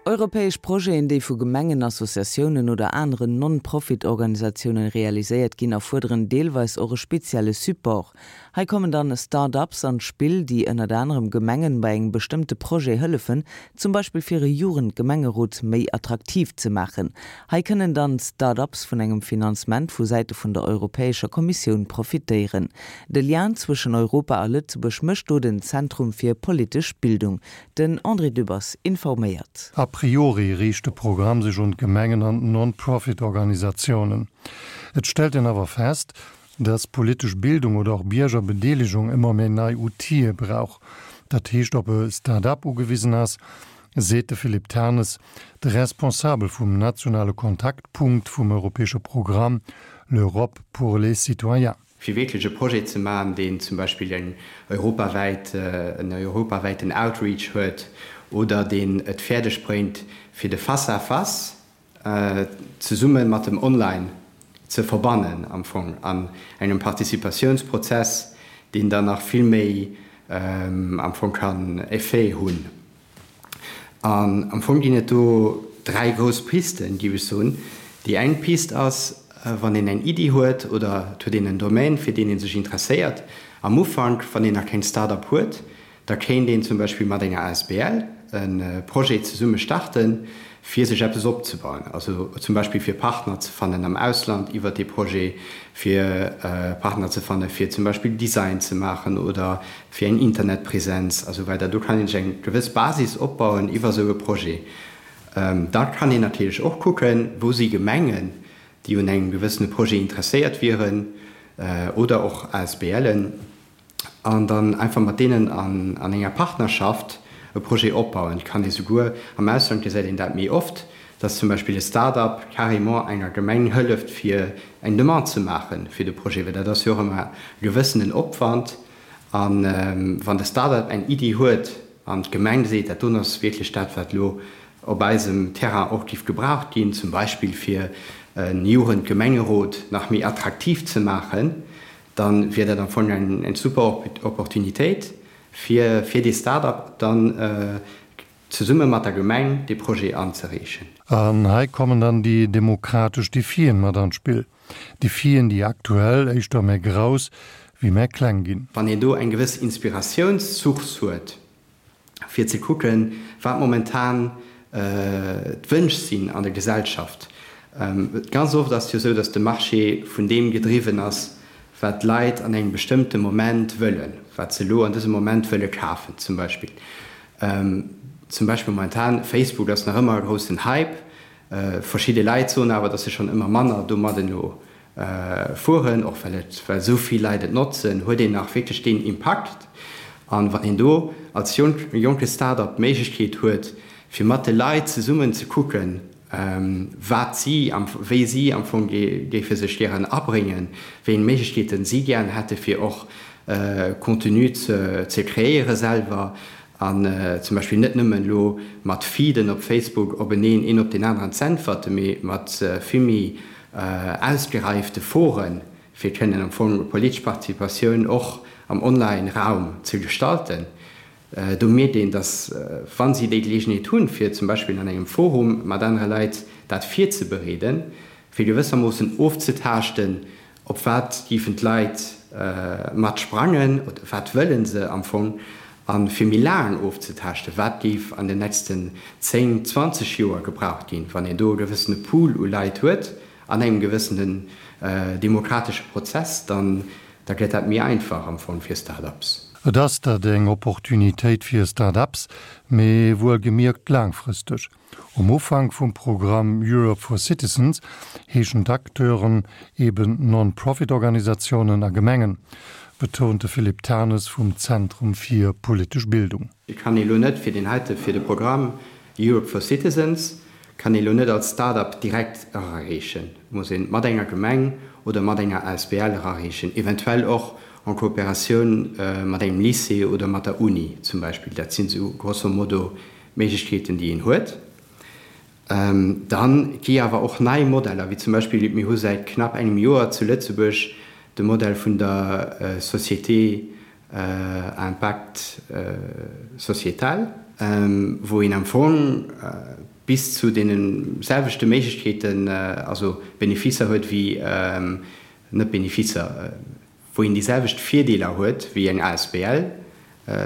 Europäesch Projeten, déi vu Gemengen, Associatiounen oder aneren Non-Profit-Organisatiounen realiséiert ginn, erfuerderen deelweis och e spezielle Support. Hei kommen dann Start-ups an d'Spill, déi ënnert anerem Gemengen bei engem bestëmmte Projet hëllefen, zum Beispill fir e Jugendgemengerot méi attraktiv ze maachen. Hei kënnen dann d'Start-ups vun engem Finanzement vu Säite vun der Europäescher Kommissioun profitéieren. De Lien zwëschen Europa a Lëtzebuerg mécht do den Zentrum fir politesch Bildung. Den André Dübbers informéiert. A priori riicht de Programm sech un d'Gemengen an d'Non-Profit-Organisatiounen. Et stellt een awer fest, dass politesch Bildung oder och Biergerbedeelegung ëmmer méi nei Outile brauch. Dat heescht op e Start-up ugewisen ass, seet de Philippe Ternes, de Responsabel vum nationale Kontaktpunkt vum europäesche Programm L'Europe pour les citoyens. Fir wierklech e Projet ze maachen, deen zum Beispill eng europawäit, en europawäiten Outreach huet oder deen et fäerdeg bréngt, fir de Face-à-face zesumme mat dem Online ze verbannen am Fong an engem Participatiounsprozess, deen dann nach vill méi am Fong kann Effet hunn. An am Fong ginn et do dräi grouss Pisten, géif ech soen. Déi eng Pist ass, wann een eng Iddi huet oder et huet een en Domaine, fir deen ee sech interesséiert am Ufank, wann een nach keng Start-up huet, Da kéint een zum Beispill mat enger asbl e Projet zesumme starten, fir sech eppes opzebauen. Also zum Beispill fir Partner ze fannen am Ausland iwwert dee Projet, fir Partner ze fanne fir zum Beispill Design ze maachen oder fir eng Internetpresenz a sou weider. Do kann een sech eng gewëss Basis opbauen iwwer esou e Projet. Da kann een natierlech och kucken, wou si Gemengen, déi un engem gewëssene Projet interesséiert wieren oder och ASBLen, an dann einfach mat deenen an enger Partnerschaft e Projet opbauen. Et kann ee souguer, am Ausland gesäit een dat méi oft, dass zum Beispill e Start-up carrément enger Gemeng hëlleft fir eng Demande ze maache fir de Projet, well dat ass jo och ëmmer e gewëssenen Opwand. A wann de Start-up eng Iddi huet an d'Gemeng seet, dat doen ass wierklech dat wat elo op eisem Terrain och géif gebraucht ginn, zum Beispill fir e Jugendgemengerot nach méi attraktiv ze maachen, dann wier dat am Fong eng super Opportunitéit fir fir dee Start-up dann zesumme mat der Gemeng dee Projet anzereechen. An hei kommen dann déi demokratesch Defien mat an d'Spill. Defien, déi aktuell éischter méi grouss wéi méi kleng ginn. Wann een do eng gewëss Inspiratiounssource huet, fir ze kucken, wat momentan d'Wënsch sinn an der Gesellschaft. Ganz oft ass et jo esou, datt de Marché vun deem gedriwwen ass, wat d'Leit an engem bestëmmte Moment wëllen, wat se elo an dësem Moment wëlle kafen zum Beispill. Zum Beispill momentan, Facebook ass nach ëmmer e groussen Hype. Verschidde Leit soen awer, datt se schonn ëmmer manner domadden elo fueren, och well et, well esou vill Leit et notzen, huet een nach wierklech deen Impakt. An wann een do als jonke Start-up d'Méiglechkeet huet, fir mat de Leit zesummen ze kucken, wat si, wéi si am Fong géife sech gären abréngen, wéi eng Méiglechkeeten si gären hätte fir och Contenu ze kreéiere selwer an zum Beispill net nëmmen elo mat Feeden op Facebook openeen een op deen aneren z'äntwerten, mee mat vill méi ausgereifte Foren, fir kënnen am Fong politesch Participatioun och am Online-Raum ze gestalten. Do mierkt een, datt wa si déi Geleegenheet hunn, fir zum Beispill an engem Forum mat anere Leit dat virzebereeden, fir gewëssermoossen ofzetaaschten, Op wat géifen d'Leit mat sprangen oder wat wëlle se am Fong? A fir méi laang ofzetaaschten, wat géif an den nächsten 10, 20 Joer gebraucht ginn, wann een do e gewëssene Pool u Leit huet an engem gewëssenen demokratesche Prozess, dann da gëtt dat méi einfach am Fong fir Start-ups. Et ass dat eng Opportunitéit fir Start-ups, mee wuelgemierkt laangfristeg. Um Ufank vum Programm Europe for Citizens heeschen d'Acteuren eben Non-Profit-Organisatiounen a Gemengen, betount de Philippe Tanes vum Zentrum fir politesch Bildung. Et kann ee lo net fir deen heite, fir de Programm Europe for Citizens kann ee lo net als Start-up direkt erareechen. Et muss ee mat enger Gemeng oder mat enger asbl erareechen, eventuell och en Kooperatioun mat engem Lycée oder mat der Uni zum Beispill. Dat sinn esou grosso modo Méiglechkeeten, déi een huet. Dann gi awer och nei Modeller, wéi zum Beispill, mir hu säit knapp engem Joer zu Lëtzebuerg de Modell vun der Société à impact sociétal, wou een am Fong. bis zu deene selwechte Méiglechkeeten, also Beneficer huet wéi, net Beneficer, wou een déi selwecht Virdeeler huet wéi eng asbl,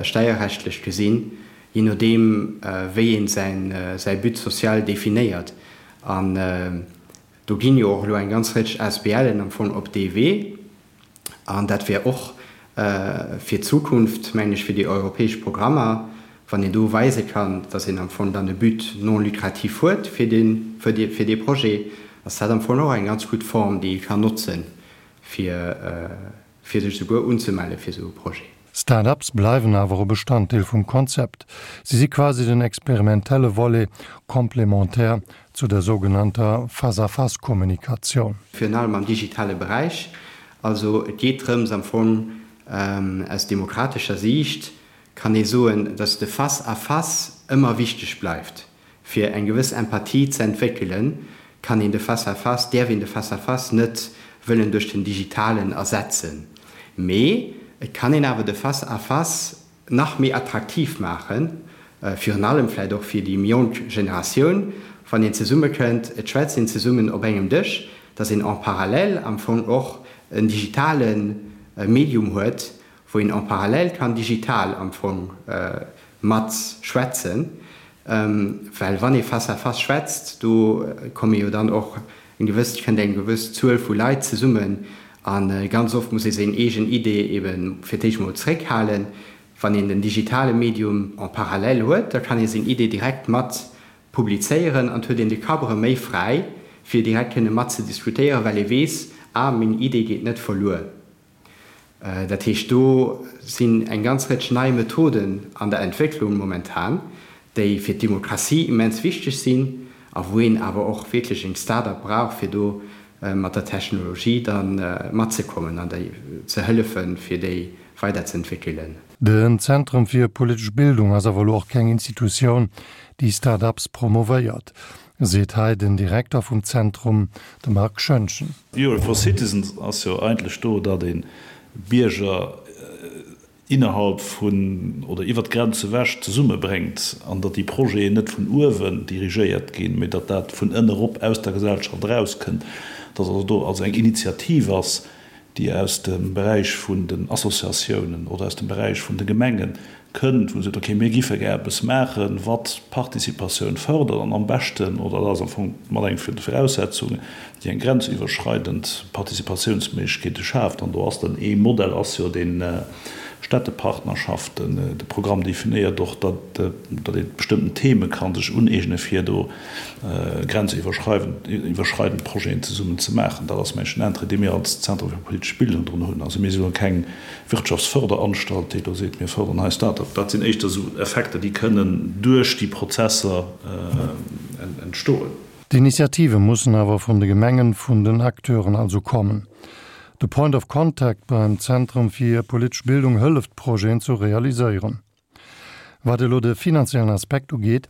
steierrechtlech gesinn, jee nodeem wéi een säi But social definéiert. An do ginn jo och elo eng ganz Rëtsch ASBLen am Fong op dee Wee. An dat wär och fir d'Zukunft, mengen ech, fir déi europäesch Programmer, wann een do weise kann, dass een am Fong dann e But non lucratif huet fir dee Projet, ass dat am Fong och eng ganz gutt Form, déi ee kann notzen, fir fir sech souguer unzemelle fir esou e Projet. Start-ups bleiwen awer e Bestanddeel vum Konzept. Si si quasi den experimentelle Volet complémentaire zu der sougenannter Face-à-face-Kommunikatioun. Virun allem am digitale Beräich. Also et geet drëms am Fong, aus demokratescher Siicht kann ee soen, datt de Face-à-face ëmmer wichteg bleift. Fir eng gewëss Empathie ze entwéckelen, kann een de Face-à-face, däerf een de Face-à-face net wëllen duerch den Digitalen ersetzen. Mee et kann een awer de Face-à-face nach méi attraktiv maachen, virun allem vläicht och fir déi méi jonk Generatioun, wann een zesummekënnt, et schwätzt een zesummen op engem Dësch, dass een en parallèle am Fong och en digitale Medium huet, wou een en parallèle kann digital am Fong mat schwätzen, well wann ee face à face schwätzt, do komme jo dann och eng gewëss, kënnt eng gewëss Zuel vu Leit zesummen a ganz oft muss ee seng eegen Idee ebe fir d'éischt mol zréckhalen. Wann een den digitale Medium en parallèle huet, da kann ee seng Idee direkt mat publizéieren an et huet een de Kapp erëm méi fräi, fir direkt kënne mat ze diskutéieren, well ee weess, ah, meng Idee geet net verluer. Dat heescht, do sinn eng ganz Rëtsch nei Methoden an der Entwécklung momentan, déi fir d'Demokratie immens wichteg sinn a wou een awer och wierklech eng Start-up brauch, fir do mat der Technologie da matzekommen an déi ze hëllefen, fir déi weiderzeentwéckelen. Den Zentrum fir politesch Bildung ass awer elo och keng Institutioun, déi Start-ups promovéiert. Seet hei den Direkter vum Zentrum, de Marc Schoentgen. Europe for Citizens ass jo eigentlech do, datt ee Bierger innerhalb vun oder iwwer d'Grenze ewech zesummebréngt an datt déi Projeten net vun uewen dirigéiert ginn, mee datt dat vun ënne erop aus der Gesellschaft erauskënnt, datt also do also eng Initiativ ass, déi aus dem Beräich vun den Associatiounen oder aus dem Beräich vun de Gemenge kënnt, wou se seet, okay, mir giffe gär eppes maachen, wat d'Participatioun fërdert an am beschten, oder dat ass am Fong mat eng vun de Viraussetzungen, déi eng grenziwwerschreidend Participatiounsméiglechkeete schaaft. An do ass dann ee Modell ass jo dee Städtepartnerschaften. De Programm definéiert och, datt ee bestëmmten Theme ka sech uneegne fir do grenziwwerschreidend Projeten zesummen ze maachen. Dat ass mengen den Intérêt, dee mir als Zentrum fir politesch Bildung drun hunn. Also mir si lo keng Wirtschaftsförderanstalt, déi elo seet, mir fërderen hei Start-up. Dat sinn éischter esou Effekter, déi kënnen duerch déi Prozesser entstoen. D'Initiative mussen awer vun de Gemengen, vun den Acteuren also kommen. De Point of Contact beim Zentrum fir politesch Bildung hëlleft d'Projeten zu realiséieren. Wat elo de finanziellen Aspekt ugeet,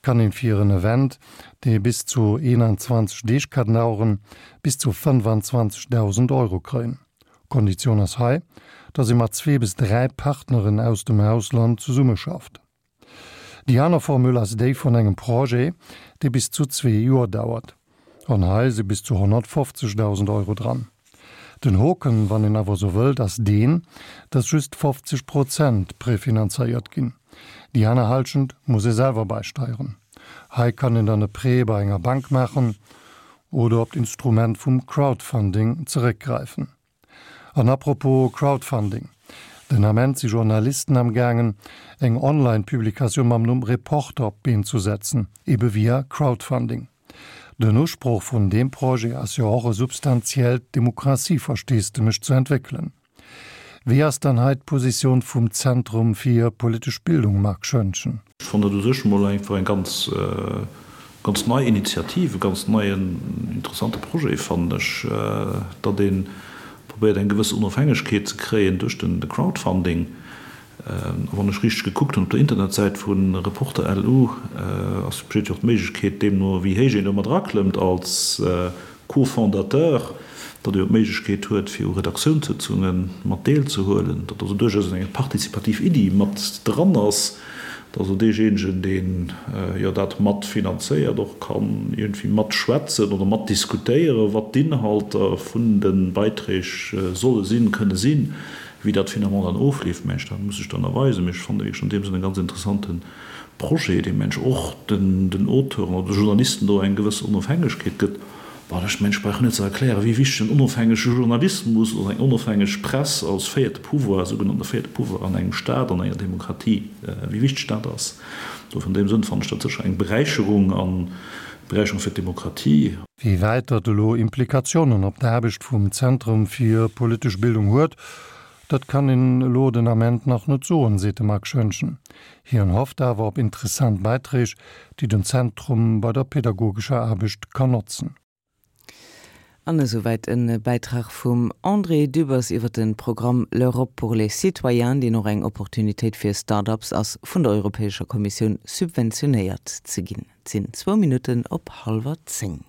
kann een fir en Event, dee bis zu 21 Deeg ka daueren, bis zu 25.000 Euro kréien. Konditioun ass hei, dass ee mat zwee bis dräi Partneren aus dem Ausland zesummeschafft. Déi aner Formule ass déi vun engem Projet, dee bis zu zwee Joer dauert. An hei si bis zu 150.000 Euro dran. Den Hoken, wann een awer esou wëllt, ass deen, dass just 50 Prozent prefinanzéiert ginn. Déi aner Halschent muss ee selwer beisteieren. Hei kann een dann e Prêt bei enger Bank maachen oder op d'Instrument vum Crowdfunding zeréckgräifen. An apropos Crowdfunding, Den Ament si Journalisten am gaangen, eng Online-Publikatioun mam Numm Reporter op d'Been zu setzen, ebe via Crowdfunding. Den Usproch vun deem Projet ass jo och e substantiellt Demokratieversteesdemech ze entwéckelen. Wéi ass dann hei d'Positioun vum Zentrum fir politesch Bildung, Marc Schoentgen? Ech fannen dat u sech emol einfach eng ganz, ganz nei Initiativ, e ganz neien, interessante Projet, fannen ech, datt ee probéiert eng gewëss Onofhängegkeet ze kréien duerch de Crowdfunding. A wann ech richteg gekuckt hunn op der Internetsäit vu Reporter LU, ass, besteet jo och d'Méiglechkeet, deemno wéi héich een do mat eraklëmmt als Co-Fondateur, datt ee jo d'Méiglechkeet huet, fir u Redaktiounssëtzunge mat deelzehuelen, datt also duerchaus eng participativ Iddi mat dran ass. Dass also deejéinegen, deen jo dat mat finanzéiert, och kann iergendwéi matschwätzen oder matdiskutéieren, wat d'Inhalter vun de Beiträg solle sinn, kënne sinn. Wéi dat finalement dann ofleeft, mengen ech, dat muss sech dann erweisen. Mee ech fannen wierklech an deem Sënn e ganz interessante Projet, dee mengen ech och den Auteuren oder de Journalisten do eng gewëss Onofhängegkeet gëtt. Bon, ech mengen, ech brauch net ze erklären, wéi wichteg en onofhängege Journalismus oder eng onofhängeg Press als véierte Pouvoir, sougenannte véierte Pouvoir an engem Staat, an enger Demokratie, wéi wichteg dat ass. Dofir an deem Sënn fannen ech dat sécher eng Beräicherung an Beräicherung fir d'Demokratie. Wéi wäit dat elo Implikationen op d'Aarbecht vum Zentrum fir politesch Bildung huet, dat kann een elo den Ament nach net soen, seet de Marc Schoentgen. Hien hofft awer op interessant Bäiträg, déi den Zentrum bei der pedagogescher Aarbecht kann notzen. An esouwäit e Bäitrag vum André Dübbers iwwer de Programm L'Europe pour les citoyens, deen och eng Opportunitéit fir Start-ups ass, vun der Europäescher Kommissioun subventionéiert ze ginn. Et sinn zwou Minutten op hallwer 10.